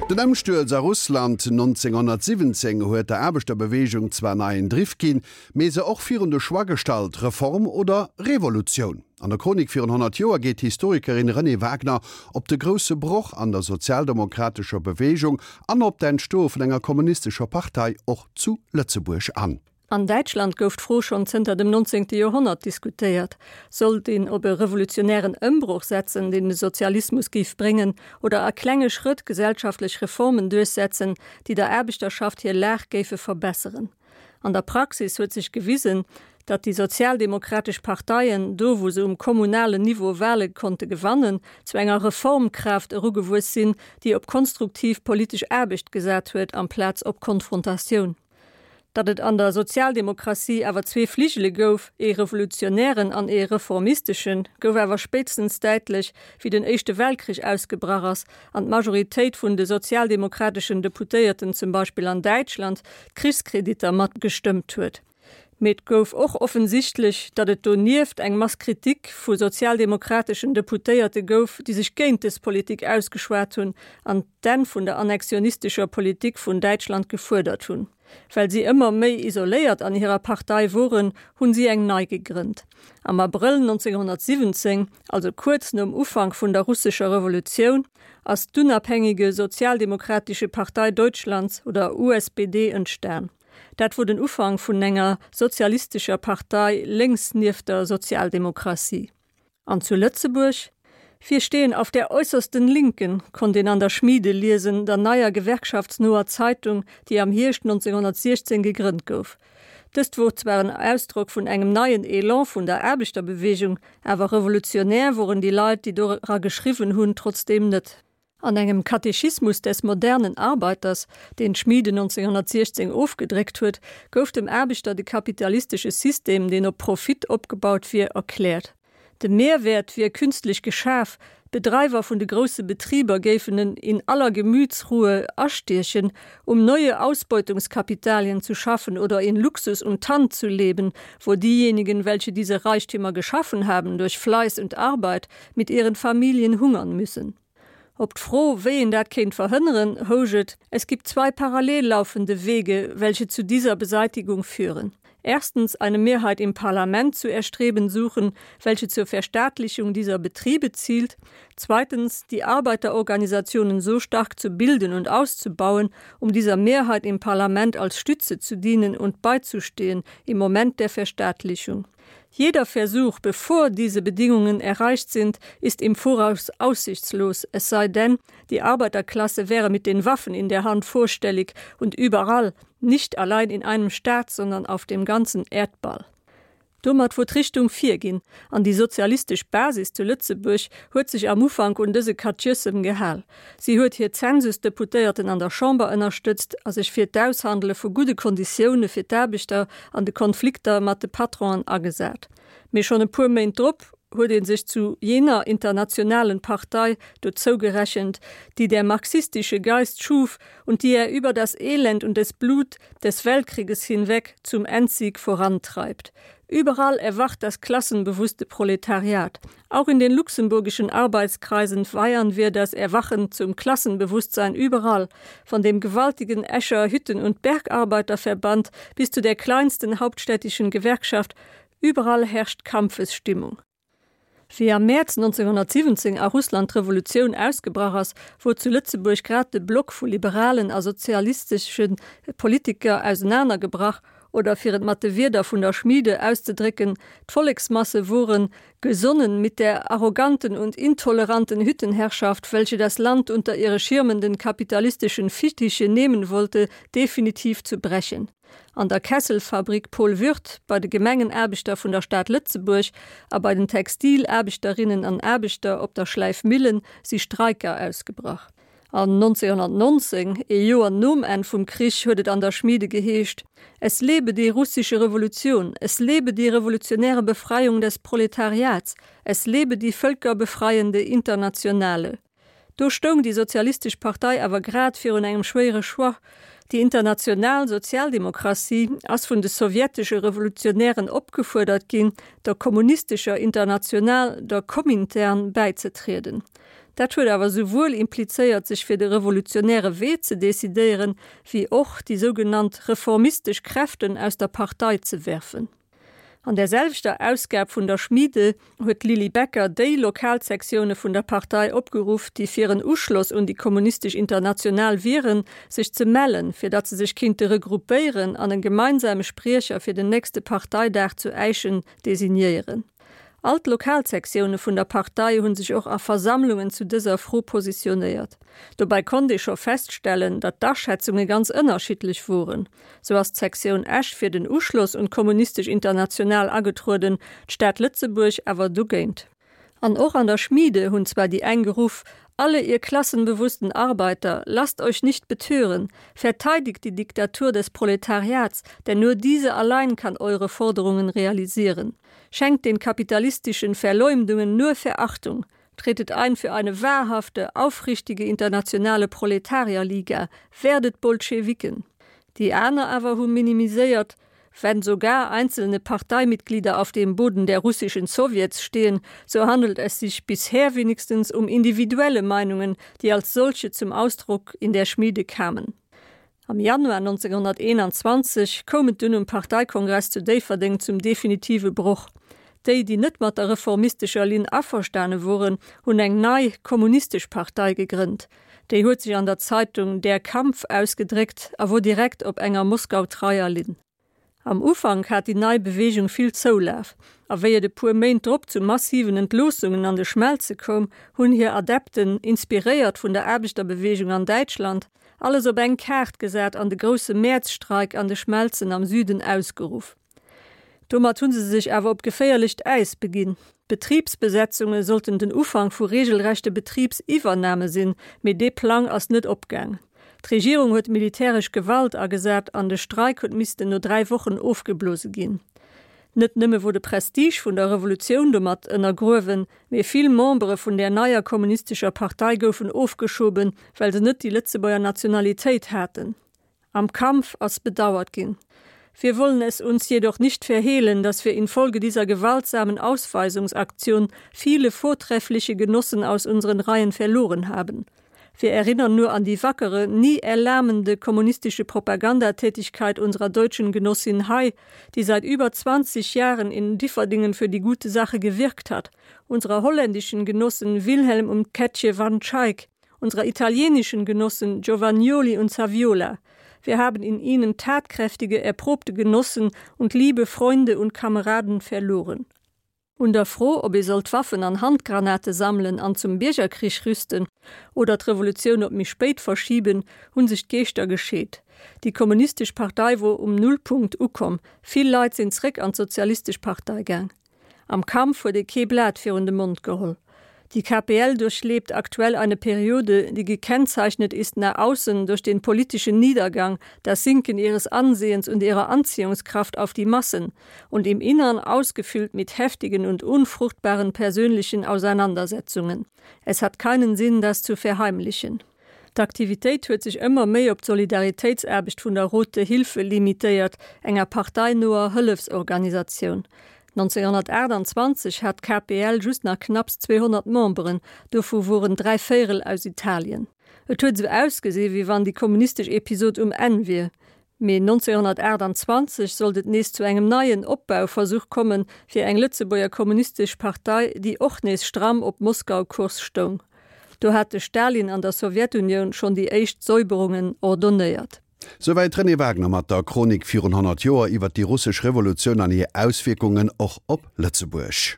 Den Ëmstuerz a Russland 1917 huet der Aarbechterbeweegung zwar neien Driff ginn, mee se och virun de Choix gestallt, Reform oder Revolutioun. An der Chronik virun 100 Joer geet d'Historikerin Renée Wagner op de grousse Broch an der sozialdemokratescher Beweegung an op d'Entstoe vun enger kommunistescher Partei och zu Lëtzebuerg an. An Däitschland gouf d'Fro schonn zënter dem 19. Joerhonnert diskutéiert, Sollt een op e revolutionären Ëmbroch setzen, deen de Sozialismus géif bréngen, oder a klenge Schrëtt gesellschaftlech Reformen duerchsetzen, déi der Aarbechterschaft hir Lag géife verbesseren? An der Praxis huet sech gewisen, datt déi sozialdemokratesch Parteien, do wou se um kommunalen Niveau Wale konnte gewannen, zu enger Reformkraaft erugewuess sinn, déi op konstruktiv politesch Aarbecht gesat huet amplaz op Konfrontatioun. Datt et an der Sozialdemokratie awer zwee Fligele gouf, ee revolutionären an ee reformisteschen, gouf awer spéitstens däitlech, wéi den Éischte Weltkrich ausgebrach ass an d'Majoritéit vun de sozialdemokrateschen Deputéierten zum Beispill an Däitschland d'Krichskreditter mat gestëmmt huet. Mee et gouf och offensichtlech, datt et donieft eng Mass Kritik vu sozialdemokrateschen Deputéierte gouf, déi sech géint dës Politik ausgeschwat hunn an d'Enn vun der annexionistescher Politik vun Däitschland gefuerdert hunn. Well si ëmmer méi isoléiert an hirer Partei woren, hunn si eng nei gegrënnt. Am Abrëll 1917, also kuerz nom Ufank vun der russescher Revolutioun, ass d'Unabhängige Sozialdemokratische Partei Deutschlands oder USPD entstan. Dat wor den Ufank vun enger sozialistescher Partei lénks nieft der Sozialdemokratie. An zu Lëtzebuerg? Wir stehen auf der äussersten Linken, konnt een an der Schmiede liesen, der neier gewerkschaftsnoer Zeitung, déi am Hierscht 1916 gegrënnt gouf. Dëst wor zwar en Ausdrock vun engem neien Elan vun der Aarbechterbewegung, awer revolutionär woren déi Leit, déi dora geschriwwen hunn, trotzdeem net. An engem Katechismus des modernen Arbeiters, deen d'Schmiede 1916 ofgedréckt huet, gouf dem Aarbechter de kapitalistesche System, deen op Profit opgebaut wier, erkläert. De Mehrwäert wier künstlech geschaf, d'Bedreiwer vun de grousse Betriber géifen en in aller Gemütsruhe astiechen, um neue Ausbeutungskapitalien zu schaffen oder in Luxus und Tand zu leben, wo diejenigen, welche diese Reichtümer geschaffen haben durch Fleiß und Arbeit, mit ihren Familien hungern müssen. Op d'Fro, wéi een dat kéint verhënneren, housch et, Es gibt zwei parallel laufende Wege, welche zu dieser Beseitigung führen. Erstens eine Mehrheit im Parlament zu erstreben suchen, welche zur Verstaatlichung dieser Betriebe zielt. Zweitens die Arbeiterorganisationen so stark zu bilden und auszubauen, um dieser Mehrheit im Parlament als Stütze zu dienen und beizustehen im Moment der Verstaatlichung. Jeder Versuch, bevor diese Bedingungen erreicht sind, ist im Voraus aussichtslos, es sei denn, die Arbeiterklasse wäre mit den Waffen in der Hand vorstellig und überall, nicht allein in einem Staat, sondern auf dem ganzen Erdball. Domat wor d'Richtung virginn, an déi sozialistesch Basis zu Lëtzebuerg huet sech am Ufank un dëse Katjëssem gehal. Si huet hir Zensusdeputéierten an der Chamber ënnerstëtzt a sech fir d'Aushandele vu gudde Konditioune fir d'Aarbechter an de Konflikter mat de Patronen agesat. Mee schonn e puer Méint drop huet ee sech zu jener internationalen Partei dozou gerechent, die der marxistische Geist schuf und die er über das Elend und des Blut des Weltkrieges hinweg zum Endsieg vorantreibt. Überall erwacht das klassenbewusste Proletariat. Auch in den luxemburgischen Arbeitskreisen feiern wir das Erwachen zum Klassenbewusstsein überall, von dem gewaltigen Escher Hütten- und Bergarbeiterverband bis zu der kleinsten hauptstädtischen Gewerkschaft, überall herrscht Kampfesstimmung. Wéi am Mäerz 1917 a Russland d'Revolutioun ausgebrach ass, wor zu Lëtzebuerg grad de Block vu liberalen a sozialistesche Politiker ausenanergebrach, oder fir et mat de Wierder vun der Schmiede auszedrécken, d'Volleksmasse woren gesonnen mit der arroganten und intoleranten Hüttenherrschaft, welche das Land unter ihre schirmenden kapitalistischen Fittiche nehmen wollte, definitiv zu brechen. An der Kesselfabrik Paul Würth, bei de Gemengenaarbechter vun der Stad Lëtzebuerg a bei den Textilaarbechterinnen an Aarbechter op der Schläifmillen si Streiker ausgebrach. An 1919, ee Joer nom Enn vum Krich, huet et an der Schmiede geheescht, Es lebe die russische Revolution, es lebe die revolutionäre Befreiung des Proletariats, es lebe die völkerbefreiende Internationale. Do stoung déi Sozialistesch Partei awer grad virun engem schwéiere Choix. Déi international Sozialdemokratie ass vun de sowjetesche Revolutionären opgefuerdert ginn, der kommunistescher International, der Komintern, bäizetrieden. Dat huet awer souwuel implizéiert, sech fir de revolutionäre Wee ze decidéieren, wéi och déi sougenannt reformistesch Kräften aus der Partei ze werfen. An där selwechter Ausgab vun der Schmiede huet d'Lilly Becker déi Lokalsektioune vun der Partei opgeruff, déi fir en Uschloss un déi Kommunistesch International wieren, sech ze mellen, fir datt se sech kinnte regroupéieren an en gemeinsame Spriecher fir den nächste Parteidag zu Äischen designéieren. All d'Lokalsektioune vun der Partei hu sech och a Versammlungen zu dëser Fro positionéiert. Dobäi konnt ee scho feststellen, datt d'Aschätzunge ganz ënnerschiddlech woren. Sou ass d'Sektioun Esch fir den Uschloss un d'Kommunistesch International agetrueden, d'Stad Lëtzebuerg awer dogéint. An och an der Schmiede hunn zwar déi eng geruff, Alle ihr klassenbewussten Arbeiter, lasst euch nicht betören, verteidigt die Diktatur des Proletariats, denn nur diese allein kann eure Forderungen realisieren. Schenkt den kapitalistischen Verleumdungen nur Verachtung, tretet ein für eine wahrhafte, aufrichtige internationale Proletarierliga, werdet Bolschewiken. Déi aner awer hu minimiséiert, Wenn sogar einzelne Parteimitglieder auf dem Boden der russischen Sowjets stehen, so handelt es sich bisher wenigstens um individuelle Meinungen, die als solche zum Ausdruck in der Schmiede kamen. Am Januar 1921 koum et dunn um Parteikongress zu Déifferdeng zum definitive Broch. Déi, déi net mat der reformistescher Linn averstane woren, hunn eng nei, kommunistesch Partei gegrënnt. Déi huet sech an der Zeitung Der Kampf ausgedréckt a wor direkt op enger moskautreier Linn. Am Ufank hat déi nei Beweegung vill Zoulaf, a wéi et e puer Méint drop zu massiven Entloossungen an de Schmelze koum, hunn hir Adepten, inspiréiert vun der Aarbechterbeweegung an Däitschland, alles op eng Kaart gesat an de grousse Mäerzstreik an de Schmelzen am Süden ausgeruff. Domat hu se sech awer op geféierlecht Äis beginn. D'Betribsbesetzunge sollten den Ufank vu regelrechte Betribsiwwername sinn, mee dee Plang ass net opgaang. D'Regierung huet militäresch Gewalt agesat an de Streik huet missten no 3 Wochen ofgeblose ginn. Net nëmme wor de Prestige vun der Revolutioun domat ënnergruewen, mee vill Membere vun där neier kommunistescher Partei goufen ofgeschoben, well se net déi Lëtzebuerger Nationalitéit haten. Am Kampf ass bedauert ginn. Wir wollen es uns jedoch nicht verhehlen, dass wir infolge dieser gewaltsamen Ausweisungsaktion viele vortreffliche Genossen aus unseren Reihen verloren haben. Wir erinnern nur an die wackere, nie erlahmende kommunistische Propagandatätigkeit unserer deutschen Genossin Hay, die seit über 20 Jahren in Differdingen für die gute Sache gewirkt hat, unserer holländischen Genossen Wilhelm und Ketje van Schaik, unserer italienischen Genossen Giovannioli und Saviola. Wir haben in ihnen tatkräftige, erprobte Genossen und liebe Freunde und Kameraden verloren. Un der Fro, ob ee sollt Waffen an Handgranate sammelen an zum Biergerkrich rüsten oder d'Revolutioun op méi spéit verschiben, hu sech d'Geeschter gescheet. Déi Kommunistesch Partei wor um Nullpunkt ukomm, vill Leit sinn zréck an d'Sozialistesch Partei gaang. Am Kampf huet ee kee Blat virun de Mond geholl. Die KPL durchlebt aktuell eine Periode, die gekennzeichnet ist nach außen durch den politischen Niedergang, das Sinken ihres Ansehens und ihrer Anziehungskraft auf die Massen und im Innern ausgefüllt mit heftigen und unfruchtbaren persönlichen Auseinandersetzungen. Es hat keinen Sinn, das zu verheimlichen. D'Aktivitéit huet sech ëmmer méi op d'Solidaritéitsaarbecht vun der Rote Hilfe limitéiert, enger parteinoer Hëllefsorganisatioun. 1928 hat d'KPL just nach knapps 200 Memberen, dovu woren dräivéierel aus Italien. Et huet esou ausgesi wéi wann déi kommunistesch Episod um Enn wier. Mee 1928 sollt et nees zu engem neien Opbauversuch kommen, fir eng Lëtzebuerger Kommunistesch Partei, déi och nees stramm op Moskau-Kurs stoung. Do hat de Stalin an der Sowjetunioun schonn déi éischt Säuberungen ordonnéiert. Souwäit d'Renée Wagner mat der Chronik virun 100 Joer iwwer déi russesch Revolutioun an hir Auswierkungen och op Lëtzebuerg.